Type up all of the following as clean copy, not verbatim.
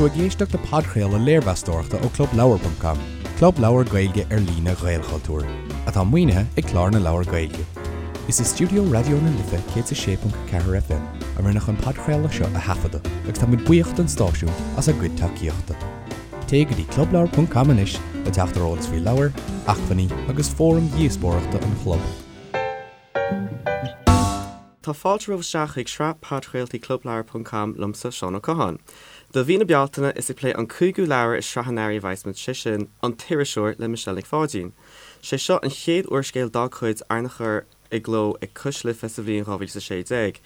tú ag éisteacht le podchraoladh léirmheastóireachta ó ClubLeabhar.com, club leabhar Gaeilge ar líne Ghaelchultúir, atá maoinithe ag Clár na Leabhar Gaeilge. Is i stiúideo Raidió na Life 106.4 FM a rinneadh an podchraoladh seo a thaifeadadh agus tá muid buíoch don stáisiún as a gcuid tacaíochta. Téigh go dtí clubleabhar.com anois le teacht ar eolas faoi leabhair, acmhainní agus fóraim dhíospóireachta an chlub. Tá fáilte romhaibh isteach chuig sraith podchraoltaí Clubleabhar ponc com liomsa, Seán Ó Catháin. Do mhí na Bealtaine, is ag plé an cúigiú leabhar i sraith an earraigh a bheas muid, sé sin, An tIriseoir le Michelle Nic Pháidín. Sé seo an chéad úrscéal dá cuid arna chur i gcló ag Cois Life sa bhliain 2016.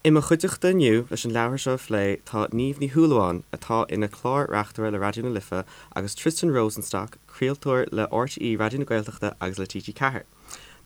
I mo chuideachta inniu leis an leabhar seo a phlé tá Niamh Ní Shúilleabháin, atá ina clár-reachtaire le Raidió na Life, agus Tristan Rosenstock, craoltóir le RTÉ Raidió na Gaeltachta agus le TG4.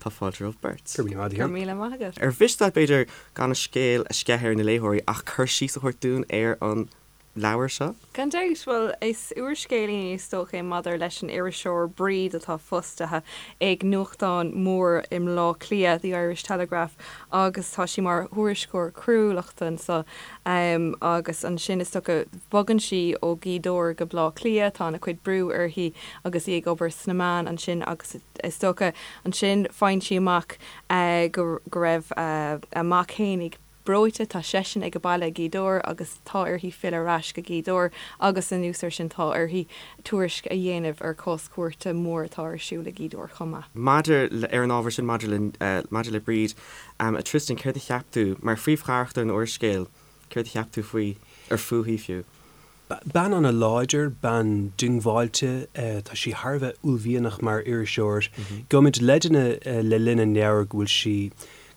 Tá fáilte romhaibh beirt. Go raibh míle maith agat. Ar mhiste leat, b'fhéidir, gan an scéal a sceitheadh ar na léitheoirí ach cur síos a thabhairt dúinn ar an leabhar seo? Gan dabht. Bhuel, is úrscéilín is dócha é maidir leis an iriseoir Bríd atá fostaithe ag nuachtán mór i mBleá Cliath, The Irish Telegraph, agus tá sí mar thuairisceoir coiriúlachta anso. Agus ansin is dócha bogann sí ó Ghaoth Dobhair go Bleá Cliath, tá ana chuid brú uirthi agus í ag obair sna meáin ansin agus Is dócha, ansin faigheann sí amach go raibh a mac fhéinig breoite, tá seisean ag baile i nGaoth Dobhair agus tá uirthi filleadh ar ais go Gaoth Dobhair agus anuas air sin tá uirthi tuairisc a dhéanamh ar chás cúirte mór atá ar siúl i nGaoth Dobhair chomh maith. Maidir le, ar an ábhar sin maidir le, maidir le Bríd, a Tristan, céard a cheap tú, mar phríomhcharachtar an úrscéil, céard a cheap tú faoi, ar fúithi fiú? Bean an-láidir, bean diongbháilte, tá sí thar a bheith uaillmhianach mar iriseoir. Gheobhaimid leideanna le linn an leabhair go bhfuil sí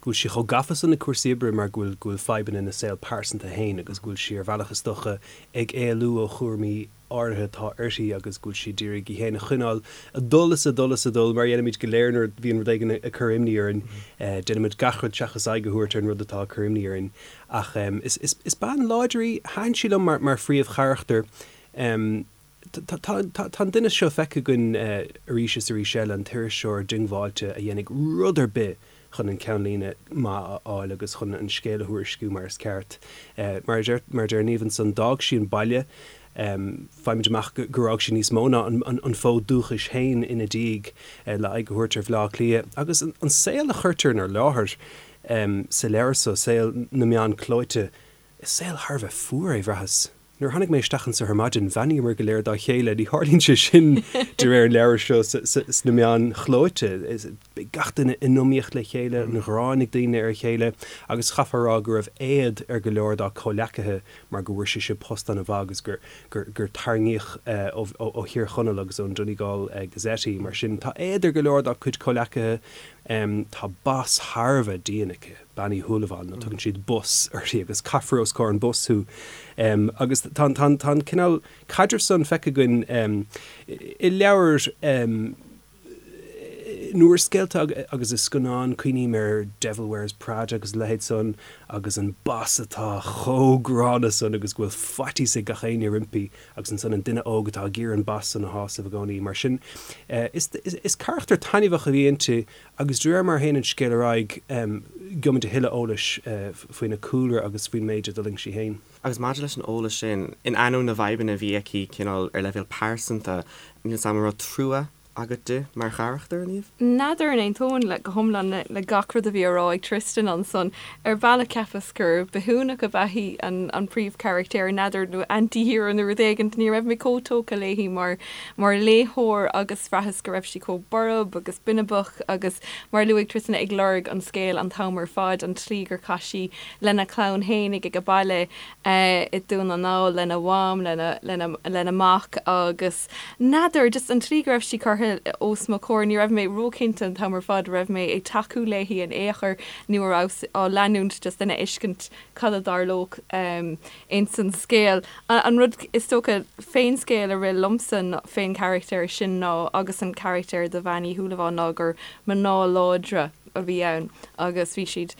go bhfuil sí chomh gafa san le cúrsaí oibre mar go bhfuil go bhfuil fadhbanna ina saol pearsanta féin agus go bhfuil sí ar bhealach is dócha ag éalú ó chúraimí áirithe atá uirthi agus go bhfuil sí ag iarraidh í féin a choinneáil ag dul is ag dul is ag dul mar a dhéanaimid go léir nuair a bhíonn rud éigin ag cur imní orainn. Déanaimid gach rud seachas aghaidh a thabhairt ar an rud atá ag cur imní orainn. Ach is bean láidir í. Thaitin sí liom mar phríomhcharachtar. Tá an duine seo feicthe againn arís is arís eile, an t-iriseoir diongbháilte a dhéanfaidh rud ar bith chun an ceannlíne maith a fháil agus chun an scéal a thuairisciú mar is ceart. Mar a deir Niamh ansan, d'fhág sí an baile. Faighimid amach gur fhág sí níos mó ná an fód dúchais féin ina diaidh le aghaidh a thabhairt ar Bhleá Cliath. Agus an saol a chuirtear inár láthair, Sa leabhar so, saol na meán clóite, is saol thar a bheith fuar é, bhraitheas. Nuair a tháinig mé isteach anso ar maidin, bheannaíomar go léir dá chéile, ní tharlaíonn sé sin de réir an leabhair seo sna meáin chlóite. Beidh gach duine in iomaíocht le chéile, an ghráin ag daoine ar a chéile, agus chaithfeá a rá go raibh éad ar go leor dá comhleacaithe mar go bhfuair sise post an-mhaith agus gur gur tarraingíodh ó Thír Chonaill agus ón Donegal Gazette í. Mar sin, tá éad ar go leor dá cuid comhleacaithe. Tá boss thar a bheith dian aici, Bean Uí Shúilleabháin, nó tugann siad Boss uirthi agus caithfear os comhair an Boss thú. Agus tá an cineál caidrimh san feicthe againn i leabhair, in úrscéalta agus i scannáin, cuimhním ar Devil Wears Prada agus a leithéid san, agus an boss atá chomh gránna san agus go bhfuil faitíos ag gach éinne roimpi. agus ansan an duine óg atá ag iarraidh an boss san a shásamh i gcónaí. Mar sin, is carachtar taitneamhach a bhí inti agus de réir mar a théann an scéal ar aghaidh, gheobhaimid a thuilleadh eolais faoina cúlra agus faoin méid a d'fhulaing sí féin. Agus maidir leis an eolas sin, in ainneoin na bhfadhbanna a bhí aici cineál ar leibhéal pearsanta, níl 's a'm an raibh trua agat di mar charachtar, a Niamh? N'fheadar an aontóinn le go hiomlán le gach rud a bhí á rá ag Tristan ansan. Ar bhealach cheapas gur bithiúnach ab ea í an príomhcharachtéir, n'fheadar, nó anti-hero nó rud éigint. Ní raibh mé chomh tógtha léi mar mar léitheoir agus bhraitheas go raibh sí chomh borb agus binibeach agus, mar a luaigh Tristan, ag lorg an scéil an t-am ar fad, an tslí gur chaith sí lena clann fhéinig ag a baile i Dún na nGall, lena mham, lena lena lena mac agus. N'fheadar, just an tslí go raibh sí curtha os mo chomhair, ní raibh mé róchinnte an t-am ar fad raibh mé ag tacú léi in aon chor nó a rabhas á leanúint just lena fheiscint cad a tharlódh ins an scéal. An rud is dócha fén scéal a rith liomsa fén charachtar sin ná, agus an carachtar de Bhean Uí Shúilleabháin ná gur mná láidre a bhí ann agus bhí siad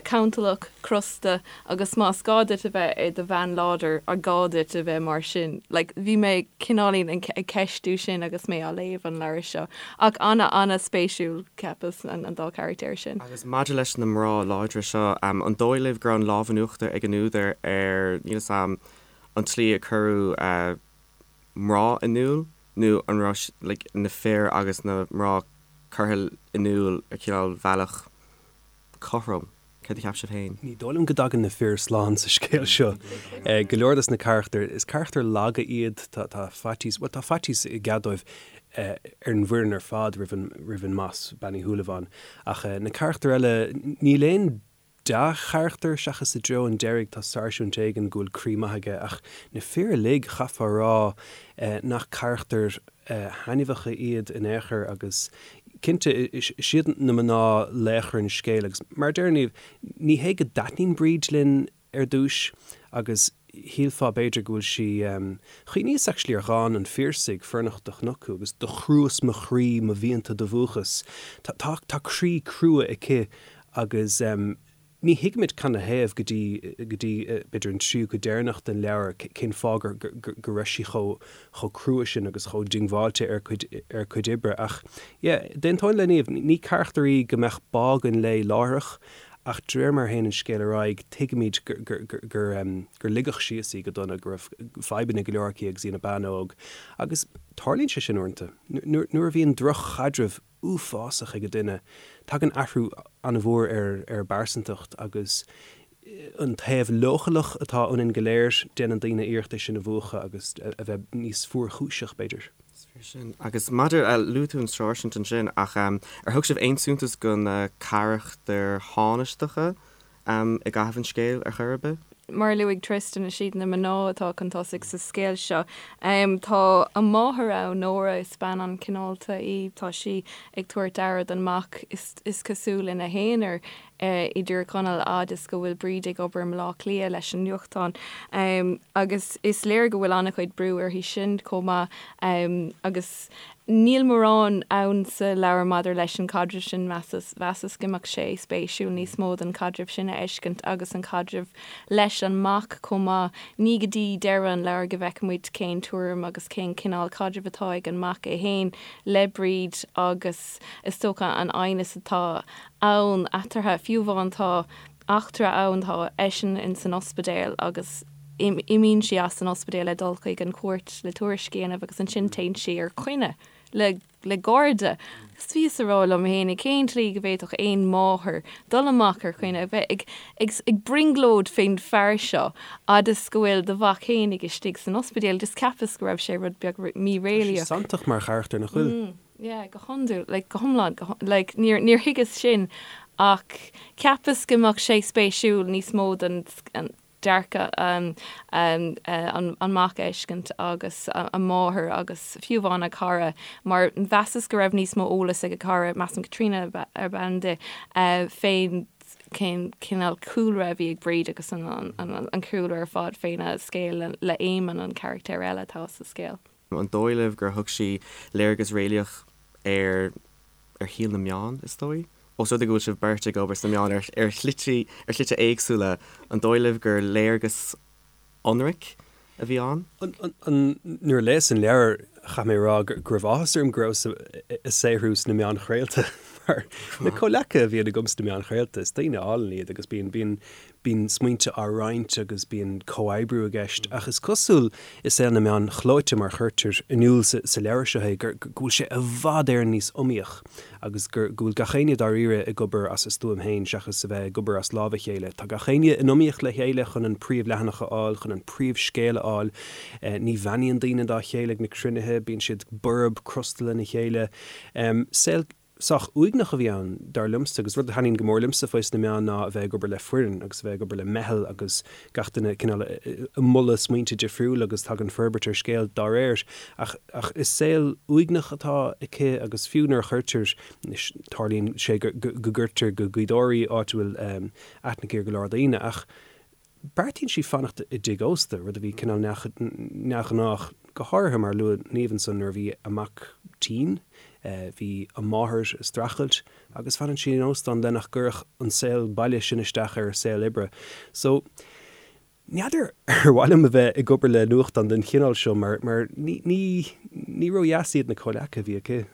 cantalach, crosta agus más gá duit a bheith i do bhean láidir, an gá duit a bheith mar sin? Like, bhí mé cineáilín ag ceistiú sin agus mé á léamh an leabhar seo. Ach ana-ana-spéisiúil, cheapas, an dá charachtar sin. Agus maidir leis na mná láidre seo, an dóigh libh go raibh an lámh in uachtar ag an údar ar, níl 'fhios a'm, an tslí a cuireadh mná in iúl nó an raibh like na fir agus na mná curtha in iúl ar chineál bhealach cothrom? Céard a cheap sibh féin? Ní dóigh liom go dtagann na fir slán sa scéal seo. Go leor dos na carachtair, is carachtair laga iad, tá faitíos, bhuel tá faitíos i gcead dóibh ar an bhfoireann ar fad roimh an, roimh an mboss, Bean Uí Shúilleabháin. Ach na carachtair eile, níl aon dea-charachtar seachas i dtreo an deiridh, tá sáirsint éigin go bhfuil croí maith aige ach na fir uilig, chaithfeá a rá nach carachtair thaitneamhacha iad in aon chor agus cinnte is iad na mná laochra an scéil agus mar a deir Niamh, ní hé go dtaitníonn Bríd linn ar dtús agus shílfeá b'fhéidir go bhfuil sí, chuimhníos actually ar dhán an Phiarsaigh, Fornocht do chonac thú agus do chruas mo chroí mo mhianta do mhúchas. Tá, tá, tá croí crua aici agus. Ní thuigimid canathaobh go dtí, go dtí, b'fhéidir an tríú cuid deireanach den leabhar cén fáth gur, gur, go raibh sí chomh, chomh crua sin agus chomh diongbháilte ar a cuid, ar a cuid oibre. Ach yeah, d'aontóinn le Niamh, ní carachtar í go mbeadh bá againn léi láithreach ach de réir mar a théann an scéal ar aghaidh tuigimid gur, gur, gur, gur, gur ligeadh síos í go dona, go raibh fadhbanna go leor aici agus í ina bean óg. Agus tarlaíonn sé sin uaireanta. Nuair, nuair a bhíonn droch-chaidreamh uafásach ag duine. Tagann athrú an-mhór ar ar a bpearsantacht agus an taobh leochaileach atá ionainn go léir, déanann daoine iarracht é sin a mhúchadh agus a bheith níos fuarchúiseach, b'fhéidir. Is fíor sin. Agus maidir, luaigh tú an sáirsint ansin, ach ar thug sibh aon suntas do na carachtair thánaisteacha i gcaitheamh an scéil ar chor ar bith? Mar a luaigh Tristan, is iad na mná atá chun tosaigh sa scéal seo. Tá a máthair ann, Nóra, is bean an-chineálta í. Tá sí ag tabhairt aire don mac, is cosúil, ina haonar i dTír Chonaill, fhad is go bhfuil Bríd ag obair i mBaile Átha Cliath leis an nuachtán. Agus is léir go bhfuil an-chuid brú uirthi sin chomh maith. Agus Níl mórán ann sa leabhar maidir leis an chaidreamh sin, mheasas. Mheasas go mbeadh sé spéisiúil níos mó den chaidreamh sin a fheiscint agus an caidreamh leis an mac chomh maith. Ní go dtí deireadh an leabhair go bhfeicfimid cén tuairim agus cén cineál caidrimh atá ag an mac é féin le Bríd agus is dócha an aighneas atá ann eatarthu. Fiú amháin tá eachtra ann, tá eisean ins an ospidéal agus imíonn sí as an ospidéal le dul chuig an chúirt le tuairisc a dhéanamh agus ansin téann sí ar coinne le le garda. Agus bhíos a rá liom fhéinig cén tslí go bhféadfadh aon mháthair dul amach ar choinne, a bheith ag ag ag brionglóid fén fear seo fhad is go bhfuil do mhac fhéinig istigh san ospidéal. Just cheapas go raibh sé rud beag Tá sí míréalaíoch. santach mar charachtar, nach bhfuil? Yeah, go hiondúil, like, go hiomlán, go, like, níor, níor thuigeas sin ach cheapas go mbeadh sé spéisiúil níos mó den dearcadh an, an, an mac a fheiscint agus a máthair agus fiú amháin a cara mar mheasas go raibh níos mó eolas ag a cara, measaim Caitríona ab ainm di, fén cén cineál cúlra a bhí ag Bríd agus an, an, an cúlra ar fad féna scéal le, le Éamonn, an carachtar eile atá sa scéal. An dóigh libh gur thug sí léargas réalaíoch ar ar shaol na meán, is dóigh? Ós rud é go bhfuil sibh beirt ag obair sna meáin ar ar shlite ar shlite éagsúla, an dóigh libh gur léargas ionraic a bhí ann? Nuair a léas an leabhar, chaith mé a rá go raibh áthas orm go rabhas ag saothrú sna meáin chraolta mar na comhleacaithe a bhíonn agam sna meáin chraolta, is daoine álainn iad agus bíonn bíonn Bíonn smaointe á roinnt agus bíonn comhoibriú i gceist, ach is cosúil i saol na meán chlóite, mar a chuirtear in iúl sa leabhar seo é, go bhfuil sé i bhfad Éireann níos iomaíoch agus go bhfuil gach éinne dáiríre ag obair as a stuaim féin seachas a bheith ag obair as lámh a chéile. Tá gach éinne in iomaíocht le chéile chun an príomhleathanach a fháil, chun an príomhscéal a fháil. Ní bheannaíonn daoine dá chéile ag na cruinnithe, bíonn siad borb, crosta lena chéile. Saol. Sách uaigneach a bhí ann, dar liomsa, agus rud a thaitníonn go mór liomsa faoi sna meáin ná a bheith ag obair le foireann agus a bheith ag obair le meitheal agus gach duine cineál ag moladh smaointe difriúla agus tagann forbairt ar scéal dá réir. Ach ach is saol uaigneach atá aici agus fiú nuair a chuirtear, anois tarlaíonn sé go go gcuirtear go Gaoth Dobhair í, áit a bhfuil aithne aici ar go leor daoine, ach Beartaíonn sí fanacht i dtigh ósta, rud a bhí cineál neamhghnách, go háirithe mar a luaigh Niamh ansan nuair a bhí a mac tinn, bhí a máthair ag streachailt agus fanann sí in óstán le nach gcuirfeadh an saol baile sin isteach ar a saol oibre. So, n'fheadar ar mhaith liom a bheith ag obair le nuachtán den chineál seo mar mar ní ní ní ródheas iad na comhleacaithe a bhí aici.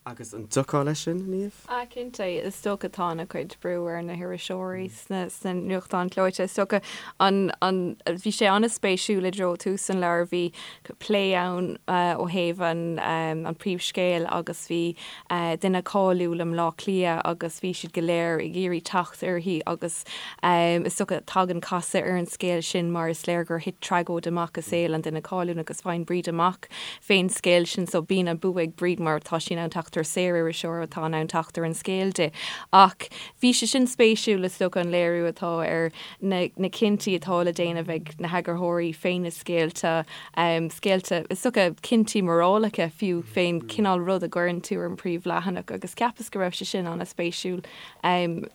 Agus an dtiocfá leis sin, Niamh? Ah, cinnte. Is dócha tá ana chuid brú ar na hiriseoirí sna sna nuachtáin chlóite. Is dócha an an bhí sé an-spéisiúil i dtreo tús an leabhair bhí plé ann ó thaobh an an príomhscéil agus bhí duine cáiliúil i mBleá Cliath agus bhí siad go léir ag iarraidh teacht uirthi agus is dócha tagann casadh ar an scéal sin mar is léir gur thit tragóid amach i saol an duine cáiliúil agus faigheann Bríd amach fén scéal sin so bíonn an bua ag Bríd mar tá sí in ann teacht ar saoririseoir atá in ann teacht ar an scéal di. Ach bhí sé sin spéisiúil is dócha an léiriú atá ar na na cinntí atá le déanamh ag na heagarthóirí fé na scéalta, scéalta is dócha cinntí morálacha fiú fén cineál rud a gcuireann tú ar an príomhleathanach agus cheapas go raibh sé sin an-spéisiúil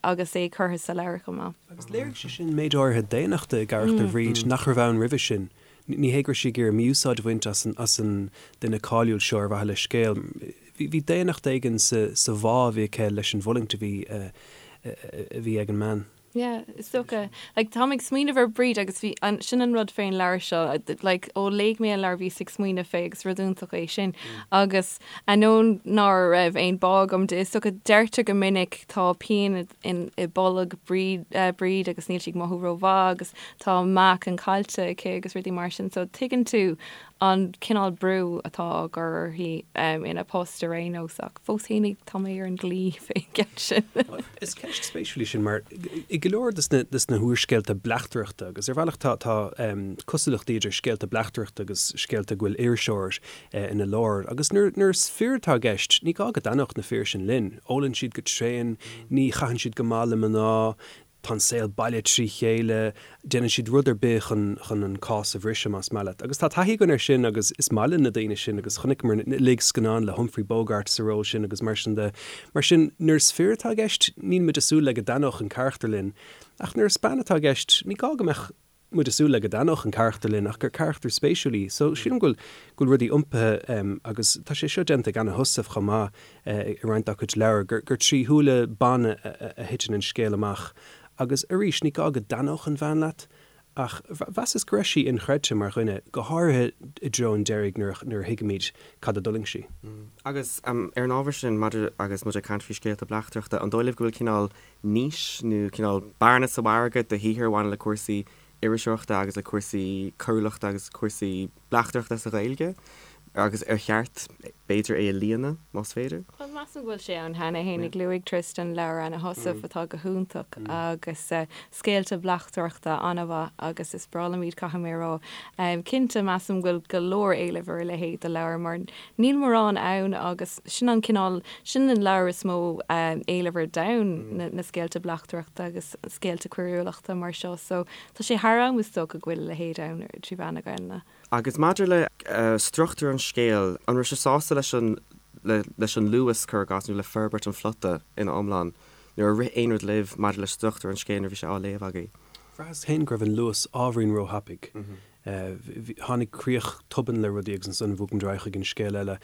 agus é curtha sa leabhar chomh maith. Agus léirigh sé sin méid áirithe daonnachta i gcarachtar Bhríd nach raibh ann roimhe sin. Ní hé go raibh sí ag iarraidh mí-úsáid a bhaint as an as an duine cáiliúil seo ar mhaithe le scéal. Bhí bhí daonnacht éigin sa sa bhá a bhí aici leis an bhfulaingt a bhí a bhí ag an mbean. Yeah, is dócha. Like, táim ag smaoineamh ar Bríd agus bhí an, sin an rud fén leabhar seo, like, ó léigh mé an leabhar bhíos ag smaoineamh fé agus rud iontach é sin. Agus ainneoin ná raibh aon bá agam di, is dócha deirtear go minic tá pian in i bolg Bríd, Bríd agus níl sí ag mothú rómhaith agus tá meáchan caillte aici agus rudaí mar sin so tuigeann tú an cineál brú atá á gcur uirthi ina post ar aon nós ach fós fhéinig tá mé ar an gclaí fén gceann sin. Is ceist spéisiúil í sin mar i go leor de na húrscéalta bleachtaireachta agus ar bhealach tá tá cosúlachtaí idir scéalta bleachtaireachta agus scéalta go bhfuil iriseoir ina lár agus nuair nuair is fir atá i gceist ní gá go dtaitneodh na fir sin linn. Ólann siad go tréan, ní chaitheann siad go maith le mná, tá an saol baile trí chéile, déanann siad rud ar bith chun chun an cás a bhriseadh, más maith leat. Agus tá taithí againn air sin agus is maith linn na daoine sin agus chonaiceamar uilig scannáin le Humphrey Bogart sa ról sin agus mar sin de. Mar sin, nuair is fir atá i gceist, níl muid ag súil le go dtaitneodh an carachtar linn. Ach nuair is bean atá i gceist, ní gá go mbeadh muid ag súil le go dtaitneodh an carachtar linn ach gur carachtar spéisiúil í. So, sílim go bhfuil, go bhfuil rudaí iompaithe agus tá sé seo déanta ag Anna Heussaff chomh maith i roinnt dá cuid leabhar, gur, gur trí shúile ban a, a thiteann an scéal amach. Agus arís, ní gá go dtaitneodh an bhean leat ach mheasas go raibh sí inchreidte mar dhuine, go háirithe i dtreo an deiridh nuair a, nuair a thuigimid cad a d'fhulaing sí. Agus ar an ábhar sin, maidir agus muid ag caint faoi scéalta bleachtaireachta, an dóigh libh go bhfuil cineál niche nó cineál bearna sa mhargadh do shaothair a bhaineann le cúrsaí iriseoireachta agus le cúrsaí coiriúlachta agus cúrsaí bleachtaireachta sa Ghaeilge agus ar cheart, b'fhéidir, é a líonadh, más féidir? Bhuel, measaim go bhfuil sé ann cheana fhéinig. Luaigh Tristan leabhar Anna Heussaff atá go hiontach agus scéalta bleachtaireachta an-mhaith agus is breá liom iad, caithfidh mé a rá. Cinnte, measaim go bhfuil go leor éilimh ar a leithéid de leabhar mar Níl mórán ann agus sin an cineál, sin an leabhar is mó éileamh ar domhan, na scéalta bleachtaireachta agus scéalta coiriúlachta mar seo. So tá sé thar am is dócha go bhfuil a leithéid ann trí mheán na Gaelainne. Agus maidir le struchtúr an scéil, an raibh sibh sásta leis an, leis an luas, cuir i gcás, nó le forbairt an phlota ina iomlán? Nó ar rith aon rud libh maidir le struchtúr an scéil nuair a bhí sé á léamh agaibh? Bhraitheas féin go raibh an luas ábhairín róthapaidh. Tháinig críoch tobann le rudaí agus ansan bhog muid ar aghaidh chuig an scéal eile.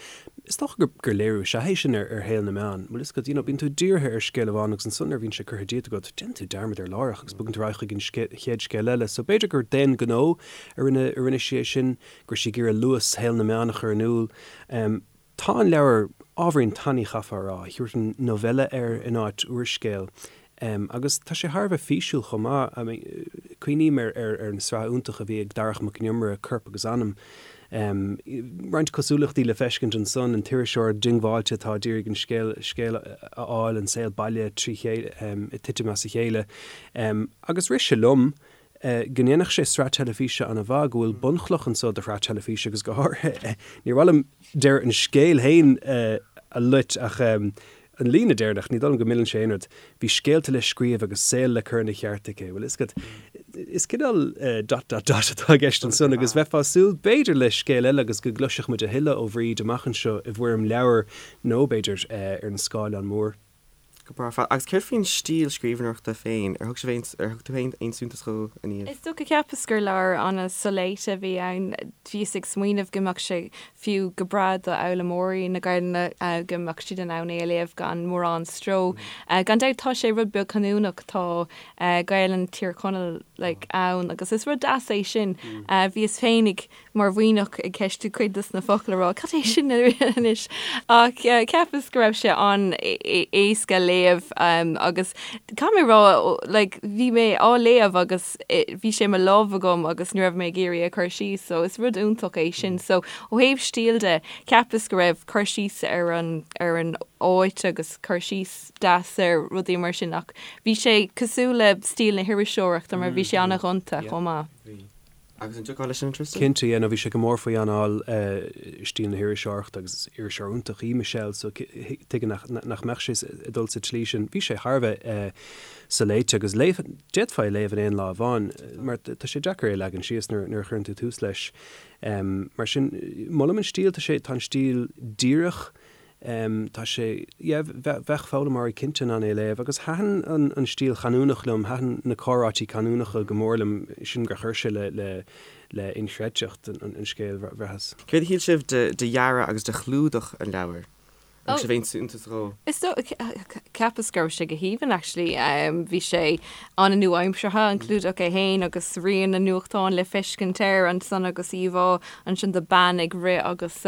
Is dócha gur gur léiriú is ea é sin ar ar shaol na meán. Bhfuil fhios agat, you know, bíonn tú dírithe ar scéal amháin agus ansan nuair a bhíonn sé curtha díot agat, déanann tú dearmad air láithreach agus bogann tú ar aghaidh chuig an chéad scéal eile. So b'fhéidir gur d'aon ghnó a rinne a rinne sí é sin, go raibh sí ag iarraidh luas shaol na meán a chur in iúl. Tá an leabhar ábhairín tanaí chaithfeá a rá, thabharfainn novella air in áit úrscéal. Agus tá sé thar a bheith físiúil chomh maith. I mean, cuimhním ar ar ar an sraith iontach a bhí ag Darach Mac Con Iomaire, Corp agus Anam. Roinnt cosúlachtaí le feiscint ansan, an t-iriseoir diongbháilte atá ag iarraidh an scéal scéal a fháil, an saol baile trí chéile, ag titim as a chéile. Agus rith sé liom, go ndéanfadh sé sraith teilifíse an-mhaith, go bhfuil bunchloch anso do shraith teilifíse agus go háirithe, níor mhaith liom deireadh an scéil féin a loit ach an líne deireanach, ní dóigh liom go milleann sé aon rud, bhí scéalta le scríobh agus saol le cur ina cheart aici. Bhfuil fhios agat, is cineál dot dot dot atá i gceist ansan agus bheifeá ag súil b'fhéidir le scéal eile agus go gcloisfeadh muid a thuilleadh ó Bhríd amach anseo i bhfoirm leabhair nó b'fhéidir ar an scáileán mór. Go breá ar fad. Agus céard faoin stíl scríbhneoireachta féin? Ar thug sibh aon, ar thug tú féin aon suntas dhó, a Niamh? Is dócha, cheapas gur leabhar an-soléite a bhí ann. Bhíos ag smaoineamh go mbeadh sé fiú go breá do fhoghlaimeoirí na Gaelainne, go mbeadh siad in ann é a léamh gan mórán stró. Gan dabht tá sé rud beag canúnach, tá Gaelainn Thír Chonaill like ann agus is rud deas é sin. Bhíos féinig mar Mhuimhneach ag ceistiú cuid dos na focail a rá cad é sin anois ach cheapas go raibh sé an-éasca léamh agus caithfidh mé rá like bhí mé á léamh agus bhí sé i mo lámh agam agus ní raibh mé ag iarraidh é a chur síos so is rud iontach é sin so ó thaobh stíl de cheapas go raibh cur síos ar an ar an áit agus cur síos deas ar rudaí mar sin ach bhí sé cosúil le stíl na hiriseoireachta mar bhí sé an-ghonta chomh maith. Bhí. Agus an dtiocfá leis sin, Tristan? Cinnte, yeah, no, bhí sé go mór faoi anáil stíl na hiriseoireachta agus is iriseoir iontach í Michelle so tuige nach mbeadh sé ag dul sa tslí sin. Bhí sé thar a bheith soléite agus léif, d'fhéadfá é a léamh in aon lá amháin mar tá sé deacair é a leagan síos nuair a chuireann tú tús leis. Mar sin, molaim an stíl, tá sé, tá an stíl díreach, Tá sé, yeah, bheadh foghlaimeoirí cinnte in ann é a léamh agus thaitin an stíl chanúnach liom, thaitin na comhráití canúnacha go mór liom, sílim gur chuir sé le, le, le inchreidteacht an scéil, bhraitheas. Céard a shíl sibh de dhearadh agus de chlúdach an leabhair? An raibh aon suntas dhó? Is dóigh, cheapas go raibh sé go haoibhinn actually. Bhí sé an-nua-aimseartha, an clúdach é féin agus rian an nuachtáin le feiscint air ansan agus íomhá ansin de bean ag rith agus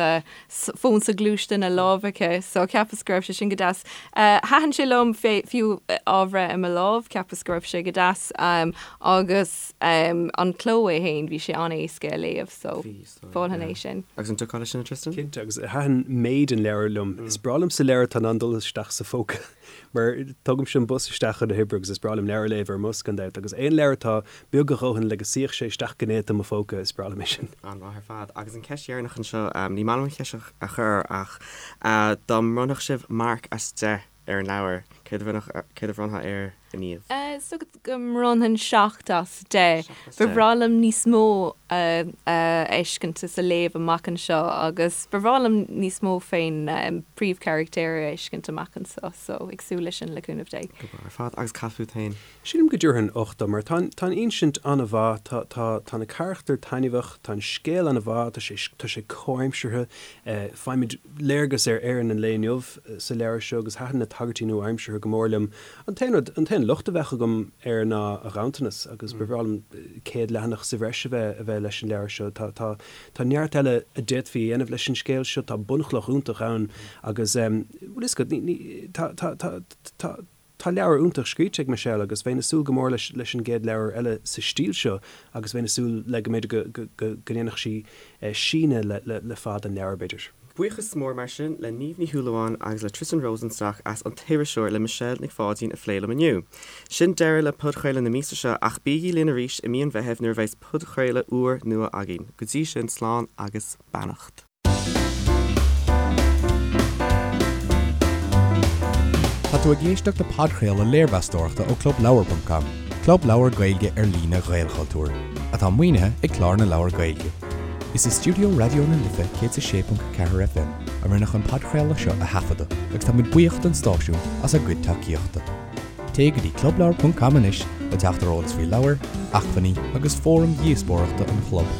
fón soghluaiste ina lámh aici so cheapas go raibh sé sin go deas. Thaitin sé liom fiú á bhreith i mo lámh, cheapas go raibh sé go deas agus an cló é féin, bhí sé an-éasca a léamh so mholfainn é sin. Agus an dtiocfá leis sin, a Tristan? Cinnte, agus thaitin méid an leabhair liom. Is breá liomsa leabhar atá in ann dul isteach sa phóca mar tugaimse an bus isteach chun na hoibre agus is breá liom leabhar a léamh ar an mbus gan dabht agus aon leabhar atá beag a dhóthain le go suífeadh sé isteach go néata i mo phóca, is breá liom é sin. An-mhaith ar fad. Agus an cheist dheireanach anseo, ní maith liom an cheist seo a chur ach dá mbronnfadh sibh marc as 10 ar an leabhar, céard a bhronnfadh, céard a bhronnfá air, a Niamh? Is dócha go mbronnfainn 7 as 10. Ba bhreá liom níos mó a fheiscint is a léamh amach anseo agus ba bhreá liom níos mó fén príomhcharachtéir a fheiscint amach anseo so ag súil leis sin le cúnamh Dé. Go breá ar fad. Agus cad fút féin? Sílim go dtabharfainn 8 dó mar tá an, tá an insint an-mhaith, tá, tá, tá na carachtair taitneamhach, tá an scéal an-mhaith, tá sé, tá sé comhaimseartha, faighimid léargas ar Éirinn an lae inniu sa leabhar seo agus thaitin na tagairtí nua-aimseartha go mór liom. An t-aon rud, an t-aon locht a bheadh agam air ná a ghanntanas agus ba bhreá liom 100 leathanach sa bhreis a bheith, a bheith leis an leabhar seo. Tá, tá, tá neart eile a d'fhéadfaí a dhéanamh leis an scéal seo, tá bunchloch iontach ann agus, bhfuil fhios agat, ní, ní, tá, tá, tá, tá, Tá leabhar iontach scríte ag Michelle agus bheinn ag súil go mór leis leis an gcéad leabhar eile sa stíl seo agus bheinn ag súil le go mb'fhéidir go go go go ndéanfadh sí síneadh le le le fad an leabhair b'fhéidir. Buíochas mór mar sin le Niamh Ní Shúilleabháin agus le Tristan Rosenstock as An tIriseoir le Michelle Nic Pháidín a phlé liom inniu. Sin deireadh le podchraoladh na míosa seo ach bígí linn arís i mí an Mheithimh nuair a bheas podchraoladh úr nua againn. Go dtí sin, slán agus beannacht. Tá tú ag éisteacht le podchraoladh léirmheastóireachta ó ClubLeabhar.com, club leabhar Gaeilge ar líne Ghaelchultúir, atá maoinithe ag Clár na Leabhar Gaeilge. Is i stiúideo Raidió na Life 106.4 FM a rinneadh an podchraoladh seo a thaifeadadh agus tá muid buíoch don stáisiún as a gcuid tacaíochta. Téigh go dtí clubleabhar.com anois le teacht ar eolas faoi leabhair, acmhainní agus fóraim dhíospóireachta an chlub.